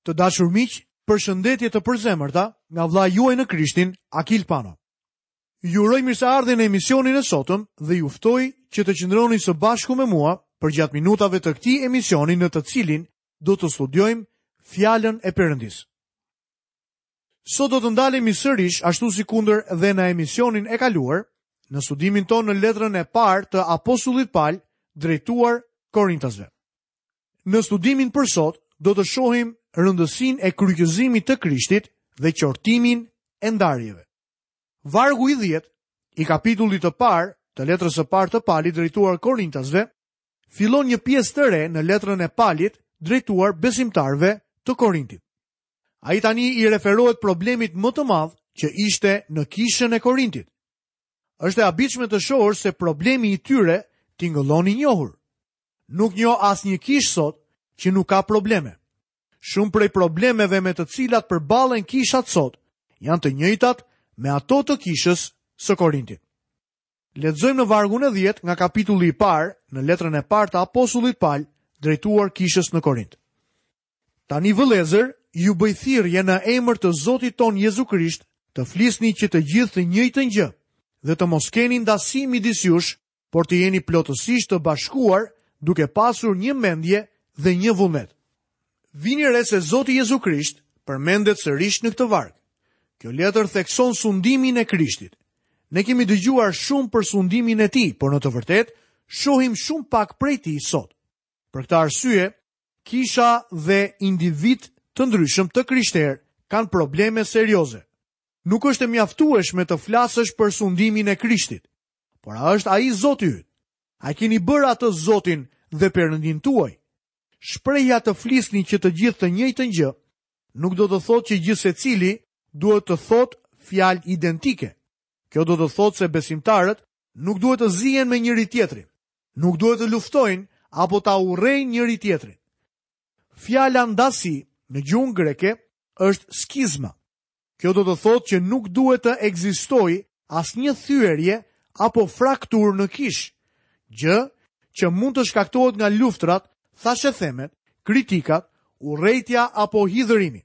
Të dashur miq, përshëndetje të përzemërta nga vëllai juaj në Krishtin, Akil Pano. Ju uroj mirëseardhjen në emisionin e sotëm dhe ju ftoj që të qëndroni së bashku me mua përgjatë minutave të këtij emisioni në të cilin do të studiojmë fjalën e Perëndisë. Sot do të ndalemi sërish ashtu sikundër dhe në emisionin e kaluar, në studimin tonë në letrën e parë të apostullit Pal drejtuar Korintasve. Në studimin për sot do të shohim rëndësinë e kryqëzimit të Krishtit dhe qortimin e ndarjeve. Vargu i 10 i kapitullit të parë të letrës së parë të Palit drejtuar Korintasve fillon një pjesë të re në letrën e Palit drejtuar besimtarëve të Korintit. Ai tani i referohet problemit më të madh që ishte në kishën e Korintit. Është e habitshme të shohësh se problemi i tyre tingëllon i njohur. Nuk njoh asnjë kishë sot që nuk ka probleme. Shumë prej problemeve me të cilat përballen kishat sot janë të njëjtat me ato të kishës së Korintit. Lexojmë në vargun e 10 nga kapitulli i parë në letrën e parë të apostullit Pal drejtuar kishës në Korint. Tani vëllezër, ju bëj thirrje në emër të Zotit tonë Jezu Krisht të flisni që të gjithë të njëjtën gjë dhe të mos keni ndasi midis jush, por të jeni plotësisht të bashkuar duke pasur një mendje dhe një vullnet. Vini re se Zoti Jezu Krisht përmendet sërish në këtë varg. Kjo letër thekson sundimin e Krishtit. Ne kemi dëgjuar shumë për sundimin e tij, por në të vërtetë shohim shumë pak prej tij sot. Për këtë arsye, kisha dhe individë të ndryshëm të krishterë kanë probleme serioze. Nuk është e mjaftueshme të flasësh për sundimin e Krishtit. Por a është ai Zoti yt? A e keni bërë atë Zotin dhe Perëndinë tuaj? Shprehja të flisni që të gjithë të njëjtën gjë, nuk do të thotë që gjithsecili duhet të thotë fjalë identike. Kjo do të thotë se besimtarët nuk duhet të zihen me njëri-tjetrin, nuk duhet të luftojnë apo ta urrejnë njëri-tjetrin. Fjala ndasi në gjuhën greke është skizma. Kjo do të thotë që nuk duhet të ekzistojë asnjë thyerje apo frakturë në kishë, gjë që mund të shkaktohet nga luftërat, thashethemet, kritikat, urrejtja apo hidhërimi.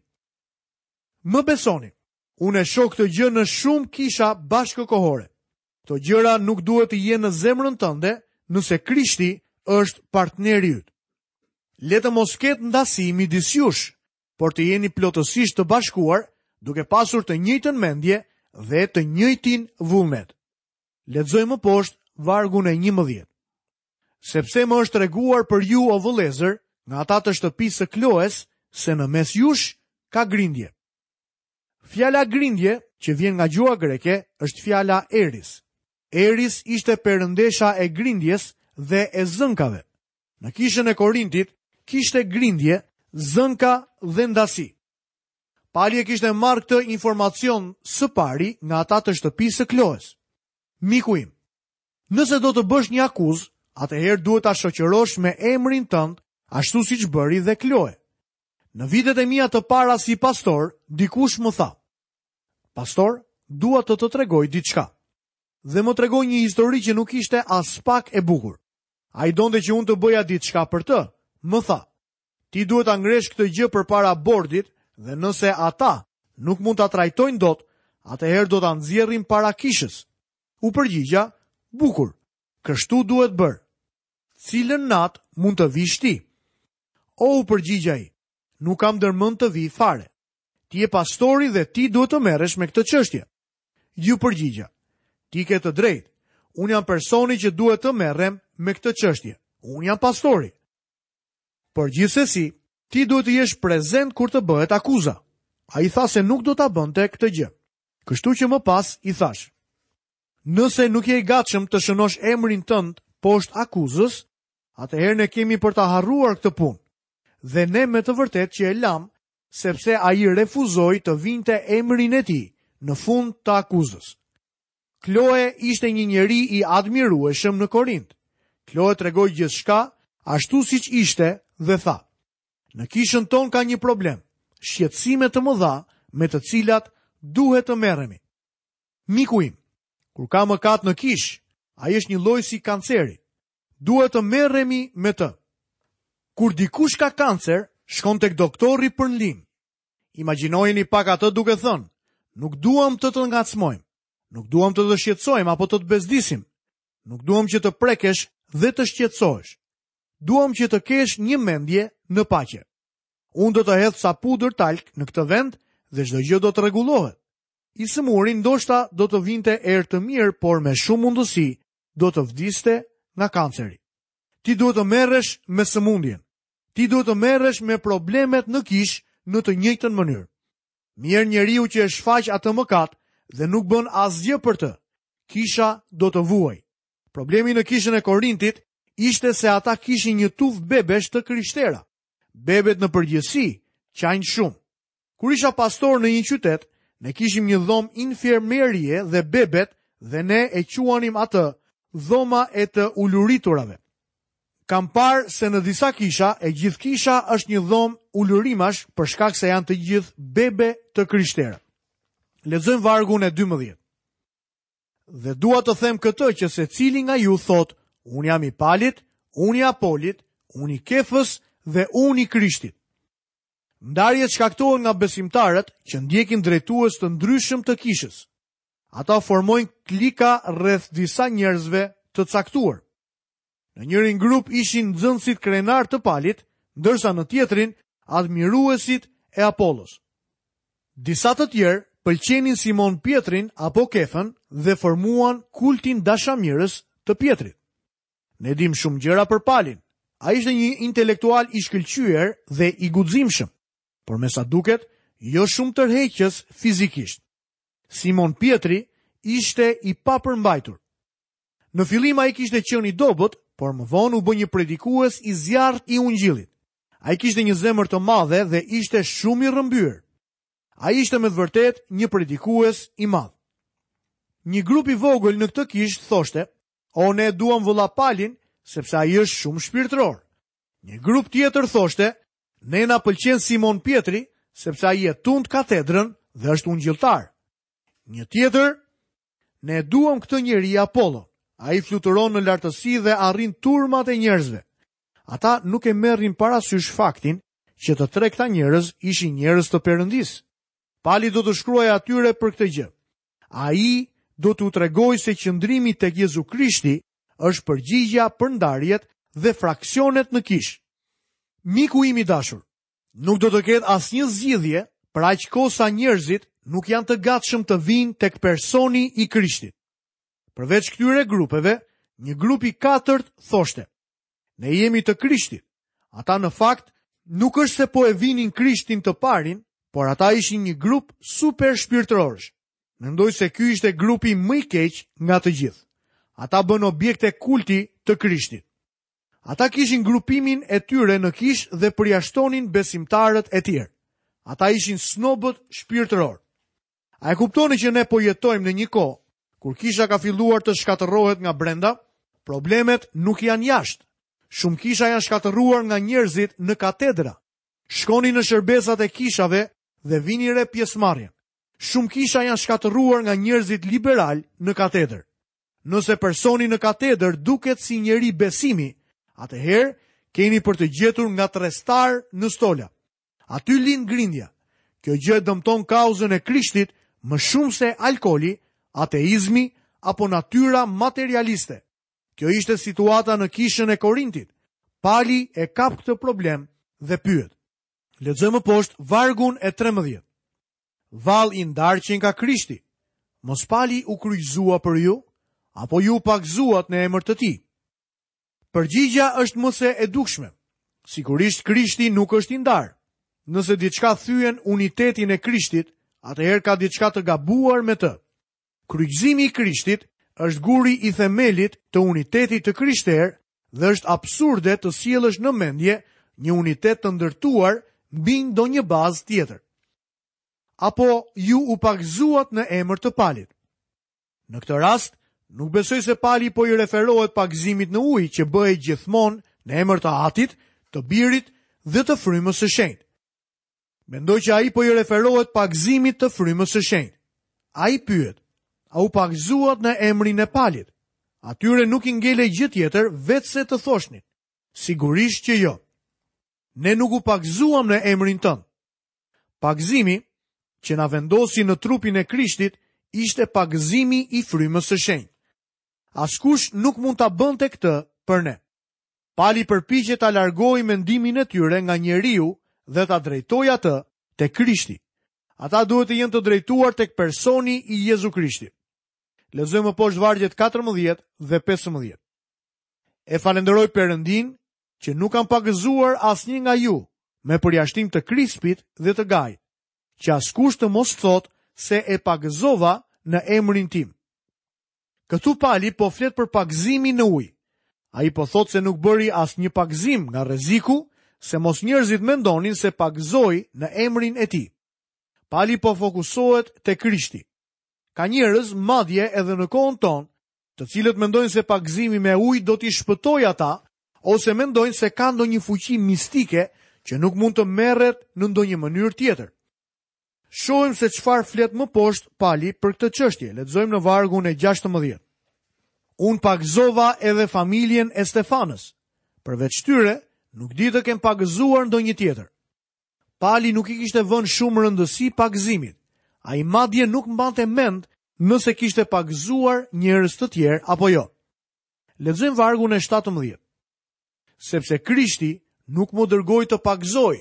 Më besoni, unë e shoh këtë gjë në shumë kisha bashkëkohore. Këto gjëra nuk duhet të jenë në zemrën tënde nëse Krishti është partneri yt. Le të mos ketë ndasi midis jush, por të jeni plotësisht të bashkuar, duke pasur të njëjtën mendje dhe të njëjtin vullnet. Lexojmë më poshtë vargun e 11. Sepse më është treguar për ju o vëllezër, nga ata të shtëpisë së Kloes, se në mes jush ka grindje. Fjala grindje, që vjen nga gjuha greke, është fjala Eris. Eris ishte perëndesha e grindjes dhe e zënkave. Në kishën e Korintit kishte grindje, zënka dhe ndasi. Pali e kishte marrë këtë informacion së pari nga ata të shtëpisë së Kloes. Miku im, nëse do të bësh një akuzë, atëherë duhet ta shoqërosh me emrin tënd, ashtu siç bëri dhe Kloe. Në vitet e mia të para si pastor, dikush më tha: "Pastor, dua të të tregoj diçka." Dhe më tregoi një histori që nuk ishte aspak e bukur. Ai donte që unë të bëja diçka për të. Më tha, ti duhet ta ngresh këtë gjë përpara bordit dhe nëse ata nuk mund ta trajtojnë dot, atëherë do ta nxjerrim para kishës. U përgjigja, bukur, kështu duhet bërë. Cilën natë mund të vish ti? O u përgjigj ai, nuk kam ndërmend të vij fare. Ti je pastori dhe ti duhet të merresh me këtë çështje. Iu përgjigja, ti ke të drejtë. Unë jam personi që duhet të merrem me këtë çështje. Unë jam pastori. Por gjithsesi, ti duhet të jesh prezent kur të bëhet akuza. Ai tha se nuk do ta bënte këtë gjë. Kështu që më pas i thashë, nëse nuk je i gatshëm të shënosh emrin tënd poshtë akuzës, atëherë ne kemi për ta harruar këtë punë. Dhe ne me të vërtetë që e lamë sepse ai refuzoi të vinte emrin e tij në fund të akuzës. Kloe ishte një njeri i admirueshëm në Korint. Kloe tregoi gjithçka ashtu siç ishte dhe tha: Në kishën tonë ka një problem, shqetësime të mëdha me të cilat duhet të merremi. Miku im, kur ka mëkat në kishë, ai është njëlloj si kanceri. Duhet të merremi me të. Kur dikush ka kancer, shkon tek doktori për ndihmë. Imagjinojeni pak atë duke thënë, nuk duam të të ngacmojmë, nuk duam të të shqetësojmë apo të të bezdisim, nuk duam që të prekesh dhe të shqetësohesh. Duam që të kesh një mendje në paqe. Unë do të hedh ca pudër talk në këtë vend dhe çdo gjë do të rregullohet. I sëmuri ndoshta do të vinte erë të mirë, por me shumë mundësi do të vdiste nga kanceri. Ti duhet të merresh me sëmundjen. Ti duhet të merresh me problemet në kishë në të njëjtën mënyrë. Mjerë njeriu që e shfaq atë mëkat dhe nuk bën asgjë për të. Kisha do të vuajë. Problemi në kishën e Korintit ishte se ata kishin një tufë bebesh të krishtera. Bebet në përgjithësi qajnë shumë. Kur isha pastor në një qytet, ne kishim një dhomë infermierie dhe bebet dhe ne e quanim atë dhoma e të uluriturave. Kam parë se në disa kisha, e gjithë kisha është një dhomë ulurimash për shkak se janë të gjithë bebe të krishtera. Lexojmë vargun e 12. Dhe dua të them këtë që secili nga ju thotë, unë jam i Palit, unë i Apolit, unë i Kefës dhe unë i Krishtit. Ndarjet shkaktohen nga besimtarët që ndjekin drejtues të ndryshëm të kishës. Ata formojnë klika rreth disa njerëzve të caktuar. Në njërin grup ishin nxënësit krenarë të Palit, ndërsa në tjetrin admiruesit e Apollos. Disa të tjerë pëlqenin Simon Pjetrin apo Kefën dhe formuan kultin dashamirës të Pjetrit. Ne dimë shumë gjëra për Palin. Ai ishte një intelektual i shkëlqyer dhe i guximshëm, por me sa duket, jo shumë tërheqës fizikisht. Simon Pjetri ishte i papërmbajtur. Në fillim ai kishte qenë i dobët, por më vonë u bë një predikues i zjarrtë i ungjillit. Ai kishte një zemër të madhe dhe ishte shumë i rrëmbyer. Ai ishte me të vërtetë një predikues i madh. Një grup i vogël në këtë kishë thoshte, "O ne e duam vëlla Palin, sepse ai është shumë shpirtëror." Një grup tjetër thoshte, "Ne na pëlqen Simon Pjetri, sepse ai e tund katedrën dhe është ungjilltar." Një tjetër, ne e duam këtë njeri Apollon. Ai fluturon në lartësi dhe arrin turmat e njerëzve. Ata nuk e merrnin parasysh faktin që të tre këta njerëz ishin njerëz të Perëndisë. Pali do t'u shkruajë atyre për këtë gjë. Ai do t'u tregojë se qëndrimi tek Jezu Krishti është përgjigja për ndarjet dhe fraksionet në kishë. Miku im i dashur, Nuk do të ketë asnjë zgjidhje për aq kohë sa njerëzit nuk janë të gatshëm të vijnë tek personi i Krishtit. Përveç këtyre grupeve, një grup i katërt thoshte: Ne jemi të Krishtit. Ata në fakt nuk është se po e vinin Krishtin të parin, por ata ishin një grup super shpirtërorësh. Mendoj se ky ishte grupi më i keq nga të gjithë. Ata bënë objekte kulti të Krishtit. Ata kishin grupimin e tyre në kishë dhe përjashtonin besimtarët e tjerë. Ata ishin snobët shpirtërorë. A e kuptoni që ne po jetojmë në një kohë kur kisha ka filluar të shkatërrohet nga brenda? Problemet nuk janë jashtë. Shumë kisha janë shkatërruar nga njerëzit në katedra. Shkoni në shërbesat e kishave dhe vini re pjesëmarrjen. Shumë kisha janë shkatërruar nga njerëzit liberalë në katedër. Nëse personi në katedër duket si njeri besimi, atëherë keni për të gjetur ngatërrestarë në stola. Aty lind grindja. Kjo gjë e dëmton kauzën e Krishtit më shumë se alkooli, ateizmi apo natyra materialiste. Kjo ishte situata në kishën e Korintit. Pali e kap këtë problem dhe pyet. Lexojmë më poshtë vargun e 13. Vallë i ndarë qenka Krishti. Mos Pali u kryqëzua për ju, apo ju u pagëzuat në emër të tij? Përgjigja është më se e dukshme. Sigurisht Krishti nuk është i ndarë. Nëse diçka thyen unitetin e Krishtit, atëherë ka diçka të gabuar me të. Kryqëzimi i Krishtit është guri i themelit të unitetit të krishterë dhe është absurde të sjellësh në mendje një unitet të ndërtuar mbi ndonjë bazë tjetër. Apo ju u pagëzuat në emër të Palit. Në këtë rast, nuk besoj se Pali po i referohet pagëzimit në ujë që bëhej gjithmonë në emër të Atit, të Birit dhe të Frymës së Shenjtë. Mendoj që ai po i referohet pagëzimit të Frymës së Shenjtë. Ai pyet, a u pagëzuat në emrin e Palit? Atyre nuk i ngelej gjë tjetër veçse të thoshnin, sigurisht që jo. Ne nuk u pagëzuam në emrin tënd. Pagëzimi që na vendosi në trupin e Krishtit ishte pagëzimi i frymës së shenjtë. Askush nuk mund ta bënte këtë për ne. Pali përpiqet ta largojë mendimin e tyre nga njeriu dhe ta drejtojë atë te Krishti. Ata duhet të jenë të drejtuar tek personi i Jezu Krishtit. Lexojmë më poshtë vargjet 14 dhe 15. E falënderoj Perëndinë që nuk kam pagëzuar asnjë nga ju, me përjashtim të Krispit dhe të Gajit, që askush të mos thotë se e pagëzova në emrin tim. Këtu Pali po flet për pagëzimin në ujë. Ai po thotë se nuk bëri asnjë pagëzim nga rreziku se mos njerëzit mendonin se pagëzoi në emrin e tij. Pali po fokusohet te Krishti. Ka njerëz, madje edhe në kohën tonë, të cilët mendojnë se pagëzimi me ujë do t'i shpëtojë ata, ose mendojnë se ka ndonjë fuqi mistike që nuk mund të merret në ndonjë mënyrë tjetër. Shohim se çfarë flet më poshtë Pali për këtë çështje. Lexojmë në vargun e 16. Unë pagëzova edhe familjen e Stefanës. Përveç tyre, nuk di të kem pagëzuar ndonjë tjetër. Pali nuk i kishte vënë shumë rëndësi pagëzimit. Ai madje nuk mbante mend nëse kishte pagëzuar njerëz të tjerë apo jo. Lexojmë vargun e 17. Sepse Krishti nuk më dërgoi të pagëzoj,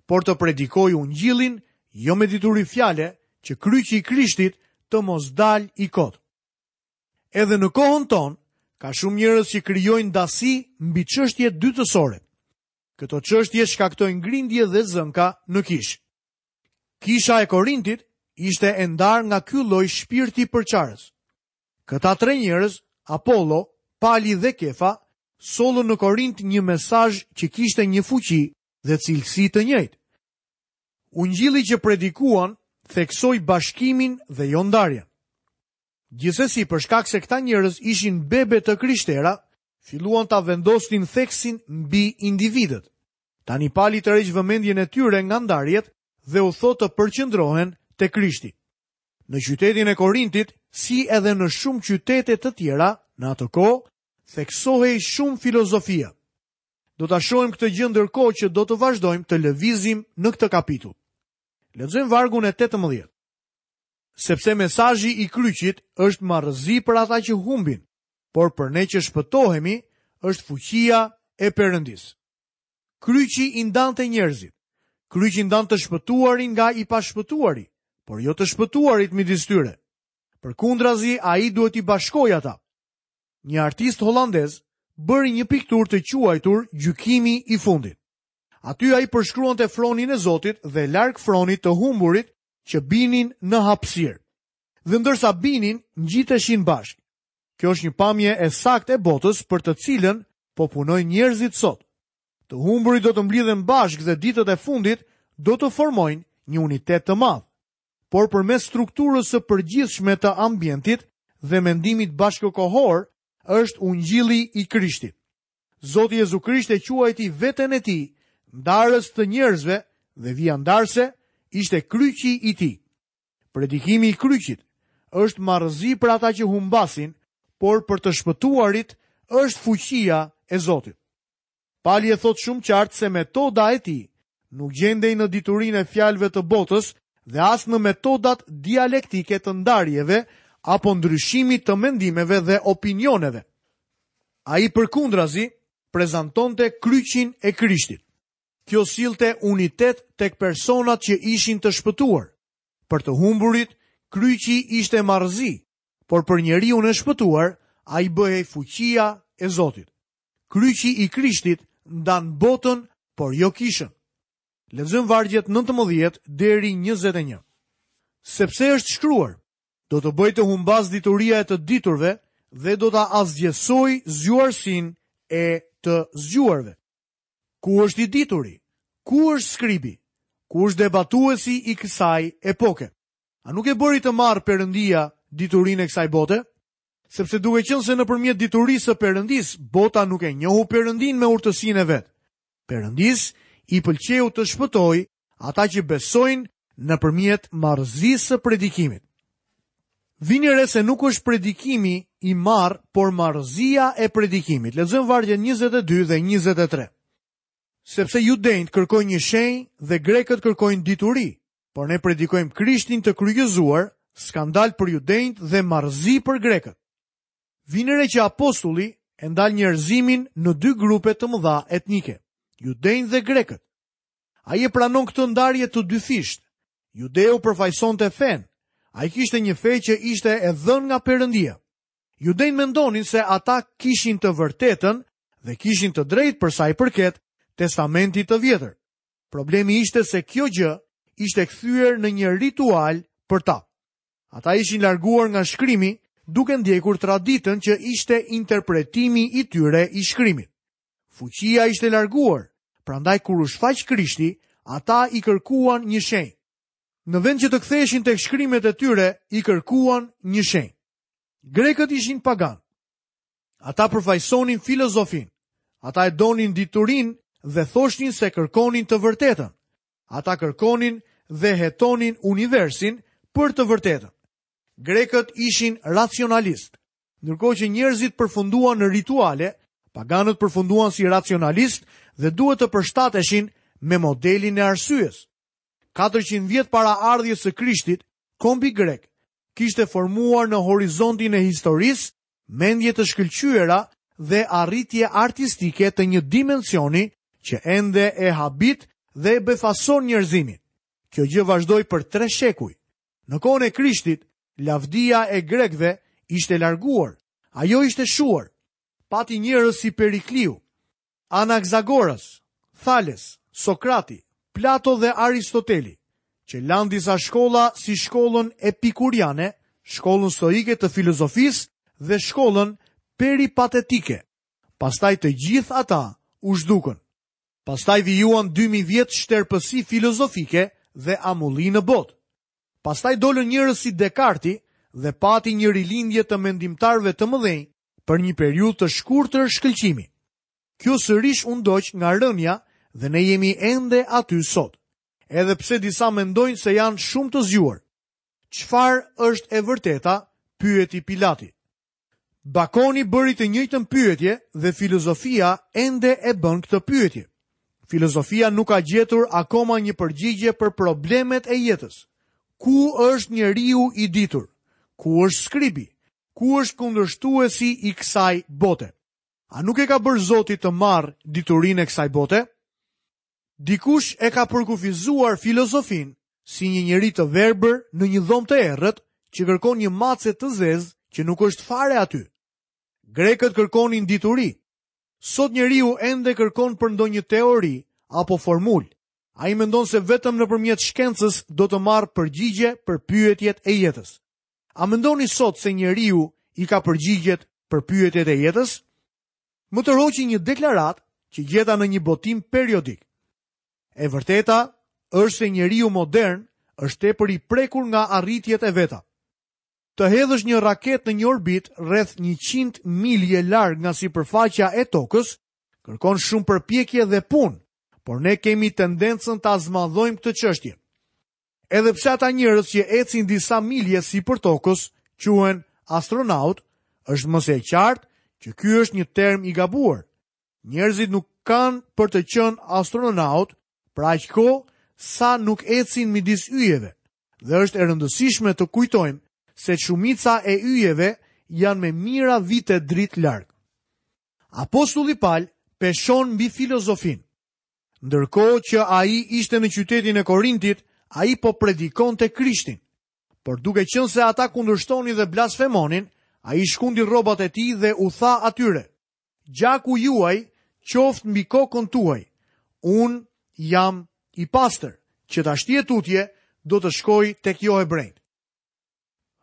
por të predikoj ungjillin, jo me dituri fjale, që kryqi i Krishtit të mos dalë i kotë. Edhe në kohën tonë, ka shumë njerëz që krijojnë ndasi mbi çështje dytësore. Këto çështje shkaktojnë grindje dhe zënka në kishë. Kisha e Korintit ishte e ndarë nga ky lloj shpirti përçarës. Këta tre njerëz, Apollo, Pali dhe Kefa, sollën në Korint një mesazh që kishte një fuqi dhe cilësi të njëjtë. Ungjilli që predikuan theksoi bashkimin dhe jo ndarjen. Gjithsesi, për shkak se këta njerëz ishin bebe të krishtera, filluan ta vendosnin theksin mbi individët. Tani Pali tërheq vëmendjen e tyre nga ndarjet dhe u thotë të përqendrohen te Krishti. Në qytetin e Korintit, si edhe në shumë qytete të tjera, në atë kohë, theksohej shumë filozofia. Do ta shohim këtë gjë ndërkohë që do të vazhdojmë të lëvizim në këtë kapitull. Lexojmë vargun e 18. Sepse mesazhi i kryqit është marrëzi për ata që humbin, por për ne që shpëtohemi është fuqia e Perëndisë. Kryqi i ndante njerëzit. Kryqi ndan të shpëtuarin nga i pashpëtuari, por jo të shpëtuarit midis tyre. Përkundrazi, ai duhet t'i bashkojë ata. Një artist holandez bëri një pikturë të quajtur Gjykimi i fundit. Aty ai përshkruante fronin e Zotit dhe larg fronit të humburit që binin në hapësirë. Dhe ndërsa binin, ngjiteshin bashkë. Kjo është një pamje e saktë e botës për të cilën po punojnë njerëzit sot. Të humburit do të mblidhen bashkë dhe ditët e fundit do të formojnë një unitet të madh. Por përmes strukturës së përgjithshme të ambientit dhe mendimit bashkëkohor është ungjilli i Krishtit. Zoti Jezu Krisht e quajti veten e tij ndarës të njerëzve dhe vija ndarëse ishte kryqi i tij. Predikimi i kryqit është marrëzi për ata që humbasin, por për të shpëtuarit është fuqia e Zotit. Pali e thotë shumë qartë se metoda e tij nuk gjendej në diturinë e fjalëve të botës dhe as në metodat dialektike të ndarjeve apo ndryshimit të mendimeve dhe opinioneve. Ai përkundrazi prezantonte kryqin e Krishtit. Kjo sillte unitet tek personat që ishin të shpëtuar. Për të humburit, kryqi ishte marrëzi, por për njeriun e shpëtuar, ai bëhej fuqia e Zotit. Kryqi i Krishtit ndan botën, por jo kishën. Lexojmë vargjet 19 deri 21. Sepse është shkruar, do të bëj të humbasë dituria e të diturve dhe do ta asgjësoj zgjuarsinë e të zgjuarve. Ku është i dituri? Ku është skribi? Ku është debatuesi i kësaj epoke? A nuk e bëri të marrë Perëndia diturinë e kësaj bote? Sepse duke qenë se nëpërmjet diturisë së Perëndisë, bota nuk e njohu Perëndinë me urtësinë e vet. Perëndisë i pëlqeu të shpëtojë ata që besojnë nëpërmjet marrëzisë së predikimit. Vini re se nuk është predikimi i marrë, por marrëzia e predikimit. Lexojmë vargjet 22 dhe 23. Sepse judenjtë kërkojnë një shenjë dhe grekët kërkojnë dituri. Por ne predikojmë Krishtin të kryqëzuar, skandal për judenjtë dhe marrëzi për grekët. Vini re që apostulli e ndan njerëzimin në dy grupe të mëdha etnike, judenjtë dhe grekët. Ai e pranon këtë ndarje të dyfishtë. Judeu përfaqësonte fenë. Ai kishte një fe që ishte e dhënë nga Perëndia. Judenjtë mendonin se ata kishin të vërtetën dhe kishin të drejtë për sa i përket Testamentit të Vjetër. Problemi ishte se kjo gjë ishte kthyer në një ritual për ta. Ata ishin larguar nga shkrimi duke ndjekur traditën që ishte interpretimi i tyre i shkrimit. Fuqia ishte larguar, prandaj kur u shfaq Krishti, ata i kërkuan një shenjë. Në vend që të ktheheshin tek shkrimet e tyre, i kërkuan një shenjë. Grekët ishin paganë. Ata përfaqësonin filozofinë. Ata e donin diturinë dhe thoshnin se kërkonin të vërtetën. Ata kërkonin dhe hetonin universin për të vërtetën. Grekët ishin racionalistë. Ndërkohë që njerëzit përfunduan në rituale, paganët përfunduan si racionalistë dhe duhet të përshtateshin me modelin e arsyes. 400 vjet para ardhjes së Krishtit, kombi grek kishte formuar në horizontin e historisë mendje të shkëlqyera dhe arritje artistike të një dimensioni që ende e habit dhe e befason njerëzimin. Kjo gjë vazhdoi për tre shekuj. Në kohën e Krishtit, lavdia e grekëve ishte larguar, ajo ishte shuar. Pati njerëz si Perikliu, Anaksagoras, Thales, Sokrati, Plato dhe Aristoteli, që lanë disa shkolla si shkollën epikuriane, shkollën stoike të filozofisë dhe shkollën peripatetike. Pastaj të gjithë ata u zhdukën. Pastaj vijuan 2000 vjet shterpësi filozofike dhe amulli në botë. Pastaj dolën njerëz si Dekarti dhe pati një rilindje të mendimtarëve të mëdhenj për një periudhë të shkurtër shkëlqimi. Kjo sërish u ndoq nga rënia dhe ne jemi ende aty sot. Edhe pse disa mendojnë se janë shumë të zgjuar. Çfarë është e vërteta? pyeti Pilati. Bakoni bëri të njëjtën pyetje dhe filozofia ende e bën këtë pyetje. Filozofia nuk ka gjetur akoma një përgjigje për problemet e jetës. Ku është njeriu i ditur? Ku është skribi? Ku është kundërshtuesi i kësaj bote? A nuk e ka bërë Zoti të marrë diturinë e kësaj bote? Dikush e ka përkufizuar filozofinë si një njeri të verbër në një dhomë të errët që kërkon një mace të zezë që nuk është fare aty. Grekët kërkonin dituri. Sot njeriu ende kërkon për ndonjë teori apo formulë. Ai mendon se vetëm nëpërmjet shkencës do të marrë përgjigje për pyetjet e jetës. A mendoni sot se njeriu i ka përgjigjet për pyetjet e jetës? Më tërhoqi një deklaratë që gjeta në një botim periodik. E vërteta është se njeriu modern është tepër i prekur nga arritjet e veta. Të hedhësh një raketë në një orbitë rreth 100 milje larg nga sipërfaqja e tokës, kërkon shumë përpjekje dhe punë, por ne kemi tendencën ta zmadhojmë këtë çështje. Edhe pse ata njerëz që ecin disa milje sipër tokës quhen astronautë, është më se e qartë që ky është një term i gabuar. Njerëzit nuk kanë për të qenë astronautë për aq kohë sa nuk ecin midis yjeve. Dhe është e rëndësishme të kujtojmë se shumica e yjeve janë me mijëra vite dritë larg. Apostulli Pal peshon mbi filozofinë. Ndërkohë që ai ishte në qytetin e Korintit, ai po predikonte Krishtin. Por duke qenë se ata kundërshtonin dhe blasfemonin, ai shkundi rrobat e tij dhe u tha atyre: Gjaku juaj qoftë mbi kokën tuaj. Unë jam i pastër, që tashti e tutje do të shkoj tek johebrenjtë.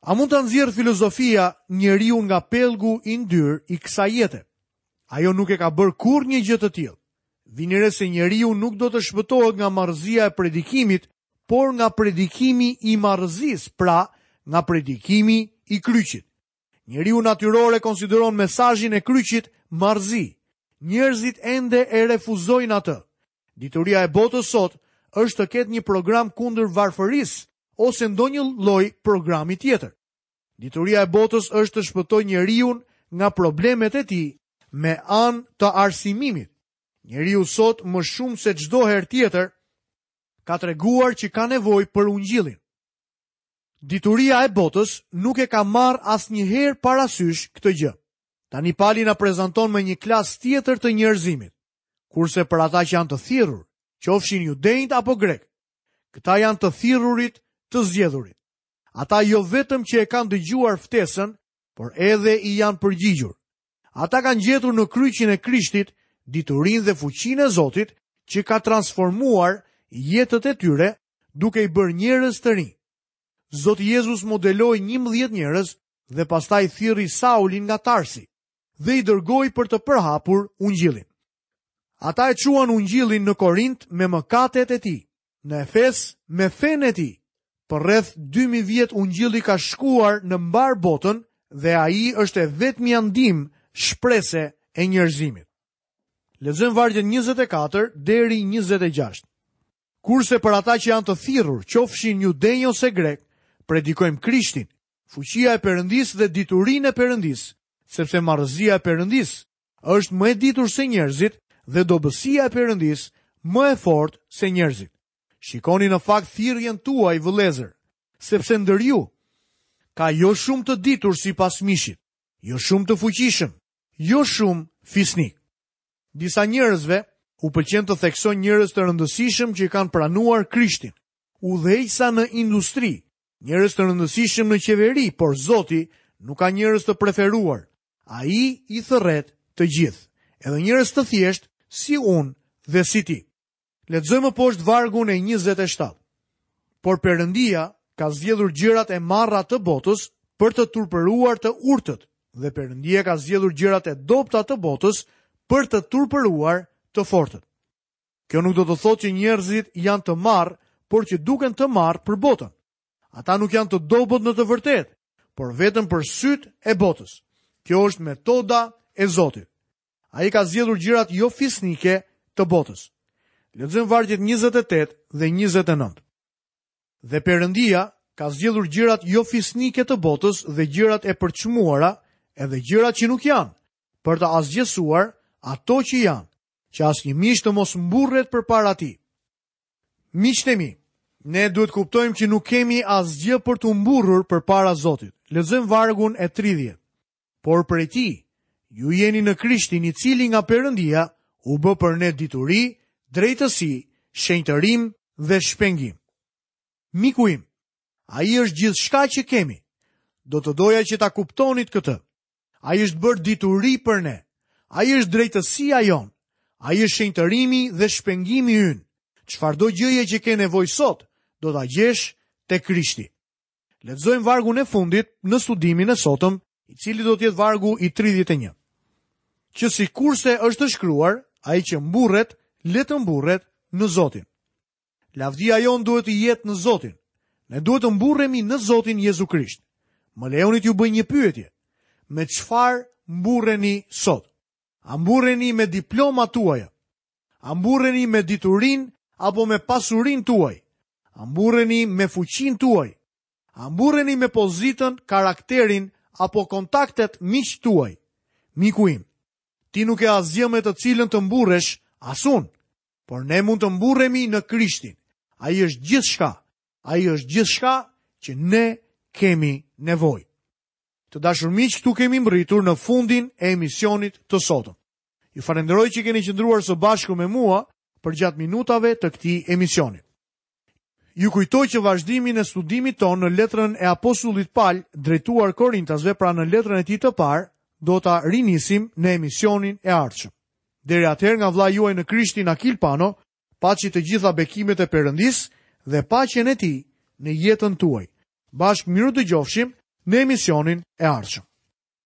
A mund ta nxjerrë filozofia njeriun nga pellgu i ndyrë i kësaj jete? Ajo nuk e ka bërë kurrë një gjë të tillë. Vini re se njeriu nuk do të shpëtohet nga marrëzia e predikimit, por nga predikimi i marrëzisë, pra nga predikimi i kryqit. Njeriu natyror e konsideron mesazhin e kryqit marrëzi. Njerëzit ende e refuzojnë atë. Dituria e botës sot është të ketë një program kundër varfërisë ose ndonjë lloj programi tjetër. Dituria e botës është të shpëtojë njeriun nga problemet e tij me anë të arsimimit. Njeriu sot më shumë se çdo herë tjetër. ka treguar që ka nevojë për ungjillin. Dituria e botës nuk e ka marrë asnjëherë parasysh këtë gjë. Tani Pali na prezanton me një klasë tjetër të njerëzimit. Kurse për ata që janë të thirrur, qofshin judenjtë apo grekë, këta janë të thirrurit, të zgjedhurit. Ata jo vetëm që e kanë dëgjuar ftesën, por edhe i janë përgjigjur. Ata kanë gjetur në kryqin e Krishtit diturinë dhe fuqinë e Zotit që ka transformuar jetët e tyre duke i bërë njerëz të rinj. Zoti Jezus modeloi 11 njerëz dhe pastaj thirri Saulin nga Tarsi dhe i dërgoi për të përhapur ungjillin. Ata e çuan ungjillin në Korint me mëkatet e tij, në Efes me fenë e tij. Për rreth 2000 vjet ungjilli ka shkuar në mbarë botën dhe ai është e vetmja ndihmë shprese e njerëzimit. Lexojmë vargjet 24 deri 26. Kurse për ata që janë të thirrur, qofshin judenj ose grekë, predikojmë Krishtin, fuqia e Perëndisë dhe diturinë e Perëndisë, sepse marrëzia e Perëndisë është më e ditur se njerëzit dhe dobësia e Perëndisë më e fortë se njerëzit. Shikoni në fakt thirrjen tuaj, vëllezër, sepse ndër ju ka jo shumë të ditur sipas mishit, jo shumë të fuqishëm, jo shumë fisnikë. Disa njerëzve u pëlqen të theksojnë njerëz të rëndësishëm që kanë pranuar Krishtin, udhëheqësa në industri, njerëz të rëndësishëm në qeveri, por Zoti nuk ka njerëz të preferuar. Ai i thërret të gjithë, edhe njerëz të thjeshtë si unë dhe si ti. Lexojmë më poshtë vargun e 27. Por Perëndia ka zgjedhur gjërat e marra të botës për të turpëruar të urtët, dhe Perëndia ka zgjedhur gjërat e dobëta të botës për të turpëruar të fortët. Kjo nuk do të thotë që njerëzit janë të marrë, por që duken të marrë për botën. Ata nuk janë të dobët në të vërtetë, por vetëm për sytë e botës. Kjo është metoda e Zotit. Ai ka zgjedhur gjërat jo fisnike të botës. Lexojmë vargjet 28 dhe 29. Dhe Perëndia ka zgjedhur gjërat jo fisnike të botës dhe gjërat e përçmuara, edhe gjërat që nuk janë, për të asgjësuar ato që janë, që asnjë mish të mos mburret përpara tij. Miqtë e mi, ne duhet të kuptojmë që nuk kemi asgjë për t'u mburrur përpara Zotit. Lexojmë vargun e 30. Por prej tij, ju jeni në Krishtin i cili nga Perëndia u bë për ne dituri, drejtësi, shenjtërim dhe shpengim. Miku im, ai është gjithçka që kemi. Do të doja që ta kuptonit këtë. Ai është bërë dituri për ne. Ai është drejtësia jonë. Ai është shenjtërimi dhe shpengimi ynë. Çfarëdo gjëje që ke nevojë sot, do ta gjesh te Krishti. Lexojmë vargun e fundit në studimin e sotëm, i cili do të jetë vargu i 31. Që sikurse është shkruar, ai që mburret, le të mburret në Zotin. Lavdia jonë duhet të jetë në Zotin. Ne duhet të mburremi në Zotin Jezu Krisht. Më lejoni t'ju bëj një pyetje. Me çfarë mburreni sot? A mburreni me diplomat tuaja? A mburreni me diturinë apo me pasurinë tuaj? A mburreni me fuqinë tuaj? A mburreni me pozitën, karakterin apo kontaktet miqtë tuaj? Miku im, ti nuk ke asgjë me të cilën të mburresh, as unë. Por ne mund të mburremi në Krishtin. Ai është gjithçka. Ai është gjithçka që ne kemi nevojë. Të dashur miq, këtu kemi mbërritur në fundin e emisionit të sotëm. Ju falënderoj që keni qëndruar së bashku me mua përgjatë minutave të këtij emisioni. Ju kujtoj që vazhdimin e studimit tonë në letrën e apostullit Pal drejtuar Korintasve, pra në letrën e tij të parë, do ta rinisim në emisionin e ardhshëm. Deri atëherë nga vëllai juaj në Krishtin Akil Pano, paçi të gjitha bekimet e Perëndisë dhe paqen e tij në jetën tuaj. Bashkë mirudëgjofshim në emisionin e ardhshëm.